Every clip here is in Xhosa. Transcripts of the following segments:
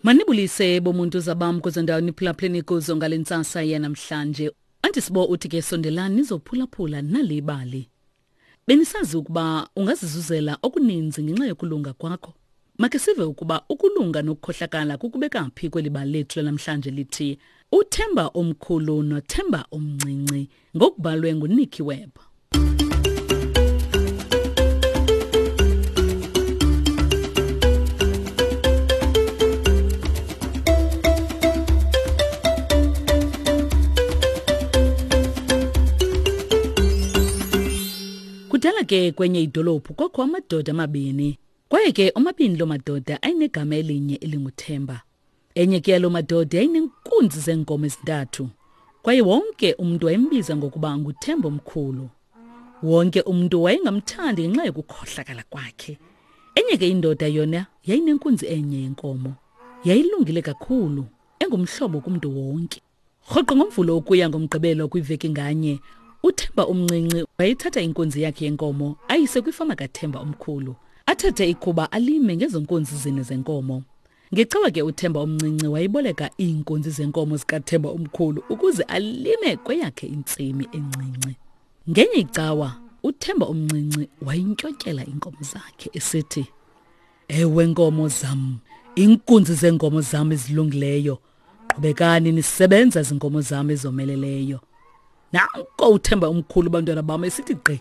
Manibulise bomuntu zabam kwezo ndawo niphulaphuleni kuzo ngale ntsasa yanamhlanje. Andisibo uthi ke sondelani nizophulaphula nali ibali. Benisazi ukuba ungazizuzela okuninzi ngenxa yokulunga kwakho? Makhe sive ukuba ukulunga nokukhohlakala kukubeka phi kweli bali lethu lanamhlanje lithi Uthemba omkhulu noThemba omncinci ngokubhalwe nguNicky Webb. Kudala ke kwenye idolophu kwakho amadoda amabini. Kwaye ke omabini loo madoda ayinegama elinye elinguThemba. Enye ke yaloo madoda yayineenkunzi zeenkomo ezintathu. Kwaye wonke umntu wayembiza ngokuba nguThemba omkhulu. Wonke umntu wayengamthandi ngenxa yokukhohlakala kwakhe. Enye ke indoda yona yayinenkunzi enye yenkomo. Yayilungile kakhulu, engumhlobo kumntu wonke. Rhoqo ngoMvulo ukuya ngoMgqibelo kwiveki nganye, uThemba omncinci wayethatha inkunzi yakhe yenkomo ayise kwifama kaThemba omkhulu. Athathe ikhuba alime ngezo nkunzi zine zenkomo. Ngecawa ke uThemba omncinci wayeboleka iinkunzi zenkomo zikaThemba omkhulu ukuze alime kweyakhe intsimi encinci. Ngenye icawa uThemba omncinci wayintyontyela iinkomo zakhe esithi, Ewe nkomo zam, iinkunzi zeenkomo zam ezilungileyo, qhubekani nisebenza zinkomo zam ezomeleleyo. Nanko uThemba omkhulu bantwana bam esithi gqi.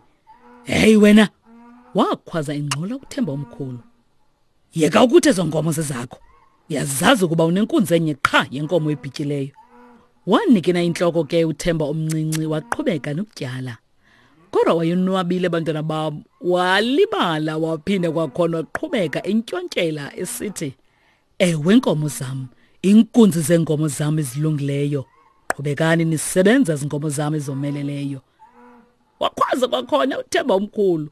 Hey wena! Wakhwaza ingxola uThemba omkhulu. Yeka ukuthi ezo nkomo zezakho. Uyazazi ukuba unenkunzi enye qha yenkomo ebhityileyo. Wanikina intloko ke uThemba omncinci waqhubeka nokutyala. Kodwa wayonwabile bantwana bam, walibala waphinda kwakhona waqhubeka entyontyela esithi, Ewe nkomo zam, inkunzi zeenkomo zam ezilungileyo. Qhubekani nisebenza zinkomo zam ezomeleleyo. Wakhwaza kwakhona uThemba omkhulu.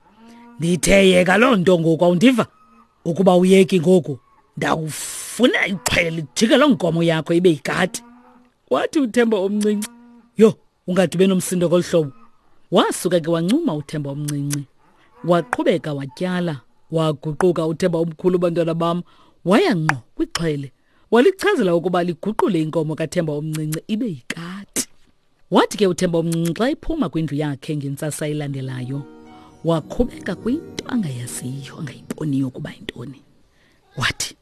Ndithe yeka loo nto ngoku awundiva? Ukuba uyeki ngoku ndawufuna ixhwele lijike loo nkomo yakho ibe yikati. Wathi uThemba omncinci, yho, ungade ube nomsindo ngolu hlobo. Wasuka ke wancuma uThemba omncinci. Waqhubeka watyala, waguquka uThemba omkhulu bantwana bam, waya ngqo kwixhwele. Walichazela ukuba liguqule inkomo kaThemba omncinci ibe yikati. Wathi ke uThemba omncinci xa ephuma kwindlu yakhe ngentsasa elandelayo, wakhubeka kwinto angayaziyo, angayiboniyo ukuba yintoni. Wathi,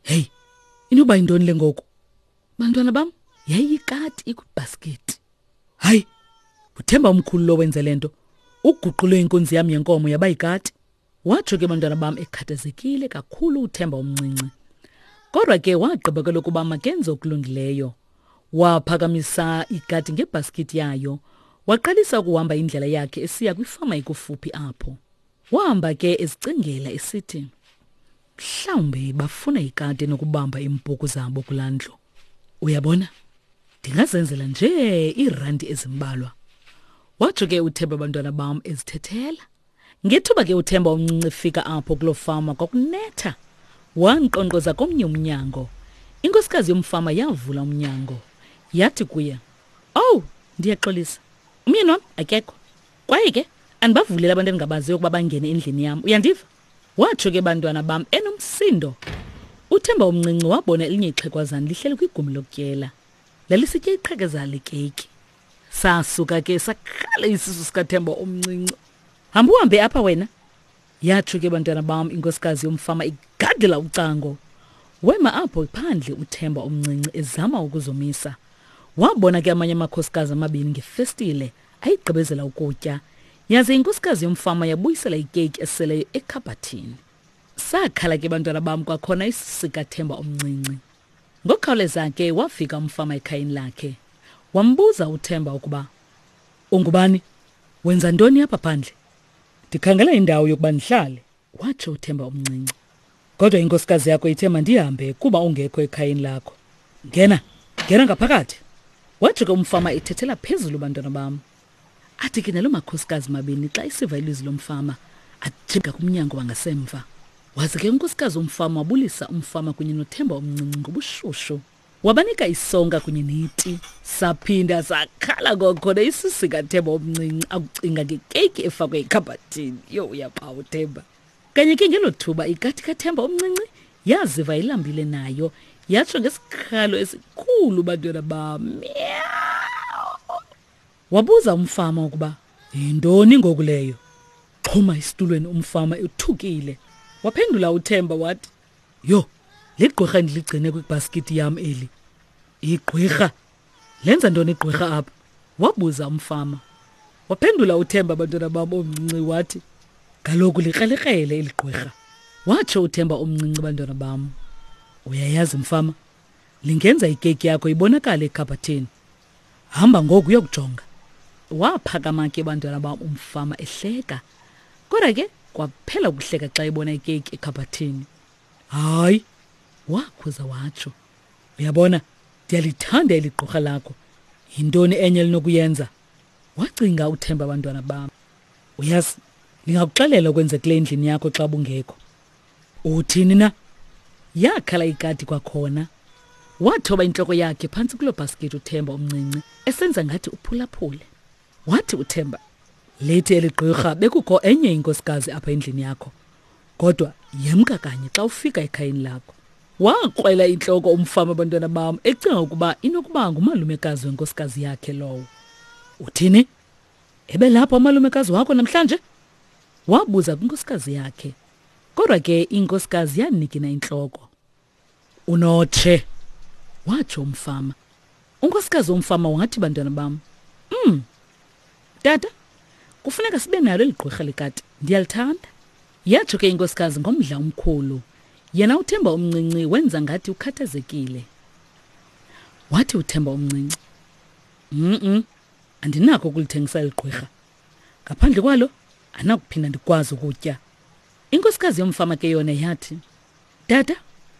Heyi, inoba yintoni le ngoku? Bantwana bam, yayiyikati ikwibhasketi. Hayi, uThemba omkhulu lo wenze le nto. Uguqule inkunzi yam yenkomo yaba yikati. Watsho ke bantwana bam ekhathazekile kakhulu uThemba omncinci. Kodwa ke wagqiba kwelokuba makenze okulungileyo. Waphakamisa ikati ngebhaskithi yayo, waqalisa ukuhamba indlela yakhe esiya kwifama ekufuphi apho. Wahamba ke ezicingela esithi, mhlawumbi bafuna ikati enokubamba iimpuku zabo kulaa ndlu. Uyabona, ndingazenzela nje iirandi ezimbalwa. Watsho ke uThemba bantwana bam ezithethela. Ngethuba ke uThemba omncinci efika apho kuloo fama kwakunetha. Wankqonkqoza komnye umnyango. Inkosikazi yomfama yavula umnyango. Yathi kuye, Owu, ndiyaxolisa. Umyeni wam akekho. Kwaye ke andibavuleli abantu endingabaziyo ukuba bangene endlini yam. Uyandiva? Watsho ke bantwana bam enomsindo. UThemba omncinci wabona elinye ixhegwazana lihleli kwigumbi lokutyela. Lalisitya iqhekeza lekeyiki. Sasuka ke sakhala isisu sikaThemba omncinci. Hamba uhambe apha wena. Yatsho ke bantwana bam inkosikazi yomfama igadela ucango. Wema apho phandle uThemba omncinci ezama ukuzomisa. Wabona ke amanye amakhosikazi amabini ngefestile ayigqibezela ukutya. Yaze inkosikazi yomfama yabuyisela ikeyiki eseleyo ekhabhathini. Sakhala ke bantwana bam kwakhona isisu sikaThemba omncinci. Ngokukhawuleza ke wafika umfama ekhayeni lakhe. Wambuza uThemba ukuba ungubani, wenza ntoni apha phandle? Ndikhangela indawo yokuba ndihlale, watsho uThemba omncinci. Kodwa inkosikazi yakho ithe mandihambe kuba ungekho ekhayeni lakho. Ngena, ngena ngaphakathi. Watsho ke umfama ethethela phezulu bantwana bam. Athi ke naloo makhosikazi mabini xa isiva ilizwi lomfama ajika kumnyango wangasemva. Waze ke unkosikazi womfama wabulisa umfama kunye noThemba omncinci ngobushushu. Wabanika isonka kunye neti. Saphinda sakhala kwakhona isisu sikaThemba omncinci akucinga ngekeyiki efakwe ekhabhathini. Yho, uyaphawa uThemba. Kanye ke ngelo thuba ikati kaThemba omncinci yaziva ilambile nayo. Yatsho ngesikhalo esikhulu bantwana bam. Wabuza umfama ukuba yintoni ngoku leyo. Xhuma esitulweni umfama ethukile. Waphendula uThemba wathi, "Yho, ligqwirha endiligcine kwibhaskithi yam eli." Igqwirha? Lenza ntoni igqwirha apha? Wabuza umfama. Waphendula uThemba bantwana bam omncinci wathi, Kaloku likrelekrele eli gqwirha. Watsho uThemba omncinci bantwana bam. Uyayazi mfama, lingenza ikeki yakho ibonakale ekhabhathini. Hamba ngoku uyokujonga. Waphakama ke bantwana bam umfama ehleka. Kodwa ke kwaphela ukuhleka xa ebona ikeki ekhabhathini. Hayi, wakhuza watsho. Uyabona, ndiyalithanda eli gqorha lakho. Yintoni enye elinokuyenza? Wacinga uThemba abantwana bam. Uyazi, ndingakuxelela okwenzekile endlini yakho xa bungekho. Uthini na? Yakhala ikati kwakhona. Wathoba intloko yakhe phantsi kuloo bhaskithi uThemba omncinci esenza ngathi uphulaphule. Wathi uThemba, lithi eli gqirha bekukho enye inkosikazi apha endlini yakho. Kodwa yemka kanye xa ufika ekhayeni lakho. Wakrwela intloko umfama abantwana bam ecinga ukuba inokuba ngumalumekazi wenkosikazi yakhe lowo. Uthini? Ebelapha umalumekazi wakho namhlanje? Wabuza kwinkosikazi yakhe. Kodwa ke inkosikazi yanikina intloko. Unotshe, watsho umfama. Unkosikazi womfama wathi, bantwana bam, tata, kufuneka sibe nalo eli gqwirha lekati. Ndiyalithanda. Yatsho ke inkosikazi ngomdla omkhulu. Yena uThemba omncinci wenza ngathi ukhathazekile. Wathi uThemba omncinci, Mm-mm, andinakho ukulithengisa eli gqwirha. Ngaphandle kwalo, andinakuphinda ndikwazi ukutya. Inkosikazi yomfama ke yona yathi, Tata,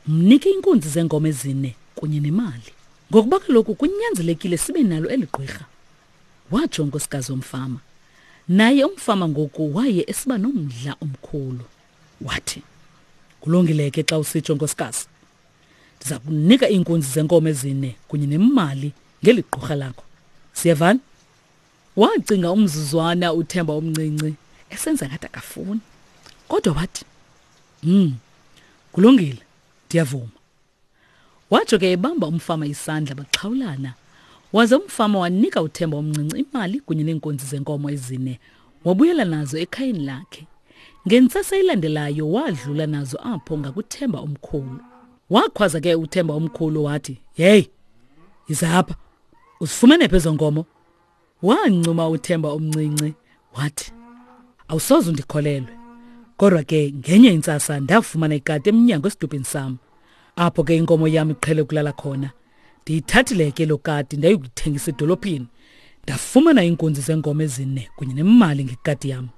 mnike inkunzi zeenkomo ezine kunye nemali. Ngokuba kaloku kunyanzelekile sibe nalo eli gqwirha. Watsho unkosikazi womfama. Naye umfama ngoku waye esiba nomdla omkhulu. Wathi, Kulungile ke xa usitsho nkosikazi. Ndiza kunika iinkunzi zenkomo ezine kunye nemali ngeli gqurha lakho. Siyevana? Wacinga umzuzwana uThemba omncinci esenza ngathi akafuni. Kodwa wathi, kulungile, ndiyavuma. Watsho ke ebamba umfama isandla baxhawulana. Waze umfama wanika uThemba omncinci imali kunye neenkunzi zenkomo ezine, wabuyela nazo ekhayeni lakhe. Ngentsasa elandelayo wadlula nazo apho ngakuThemba omkhulu. Wakhwaza ke uThemba omkhulu wathi, "Hey, yiza apha. Uzifumene phi ezo nkomo?" Wancuma uThemba omncinci wathi, "Awusoze undikholelwe. Kodwa ke ngenye intsasa ndafumana ikati emnyango esidubhini sam. Apho ke inkomo yam iqhele ukulala khona. Ndiyithathile ke lo kati ndayokuyithengisa edolophini. Ndafumana iinkunzi zeenkomo ezine kunye nemali ngekati yam."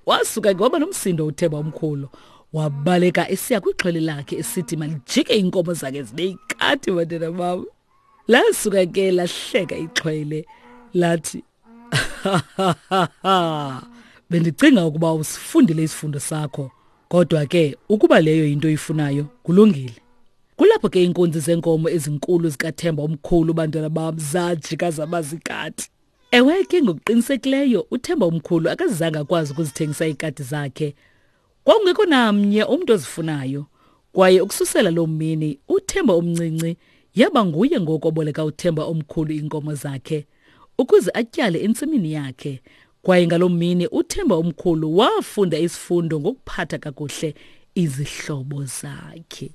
Wasuka ke waba nomsindo uThemba omkhulu. Wabaleka esiya kwixhwele lakhe esithi malijike iinkomo zakhe zibe yikati bantwana bam. Lasuka ke lahleka ixhwele lathi, Bendicinga ukuba usifundile isifundo sakho, kodwa ke ukuba leyo yinto oyifunayo, kulungile. Kulapho ke iinkunzi zeenkomo ezinkulu zikaThemba omkhulu bantwana bam zajika zaba zikati. Ewe ke ngokuqinisekileyo uThemba omkhulu akazange akwazi ukuzithengisa iikati zakhe. Kwakungekho namnye umntu ozifunayo. Kwaye ukususela loo mini uThemba omncinci yaba nguye ngoku oboleka uThemba omkhulu iinkomo zakhe ukuze atyale entsimini yakhe. Kwaye ngaloo mini uThemba omkhulu wafunda isifundo ngokuphatha kakuhle izihlobo zakhe.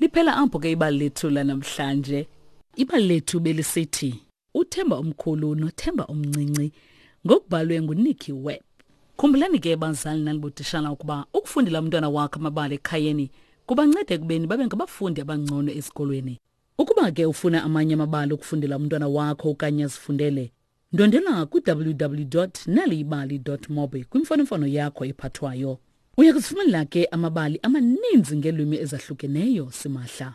Liphela apho ke ibali lethu lanamhlanje. Ibali lethu belisithi uThemba omkhulu noThemba omncinci ngokubhalwe nguNicky Webb. Khumbulani ke bazali nanibotishala ukuba ukufundela umntwana wakho amabali ekhayeni kubanceda ekubeni babe ngabafundi abangcono esikolweni. Ukuba ke ufuna amanye amabali okufundela umntwana wakho okanye azifundele, ndwendwela ku-www.naliyibali.mobi kwimfonomfono yakho ephathwayo. Uya kuzifumanela ke amabali amaninzi ngeelwimi ezahlukeneyo simahla.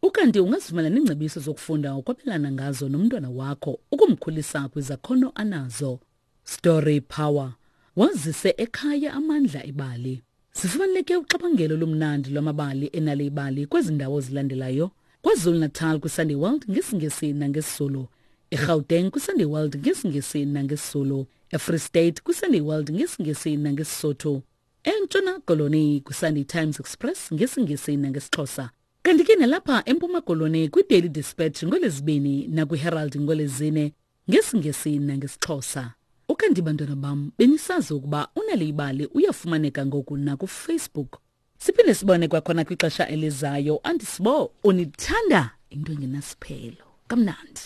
Ukanti ungazifumana neengcebiso zokufunda ukwabelana ngazo nomntwana wakho ukumkhulisa kwizakhono anazo. Story Power. Wazise ekhaya amandla ebali. Zifumaneke uxabangelo lomnandi lwamabali enale ibali kwezi ndawo zilandelayo. KwaZulu-Natal kwiSunday World ngesiNgesi nangesiZulu. EGauteng kwiSunday World ngesiNgesi nangesiZulu. EFree State kwiSunday World ngesiNgesi nangesiSotho. ENtshona Koloni kwiSunday Times Express ngesiNgesi nangesiXhosa. Kanti ke nalapha eMpuma Koloni kwiDaily Dispatch ngoLwezibini nakwiHerald ngoLwezine ngesiNgesi nangesiXhosa. Ukanti bantwana bam benisazi ukuba uNal'ibali uyafumaneka ngoku nakuFacebook. Siphinde sibone kwakhona kwixesha elizayo. Andisibo unithanda into engenasiphelo. Kamnandi.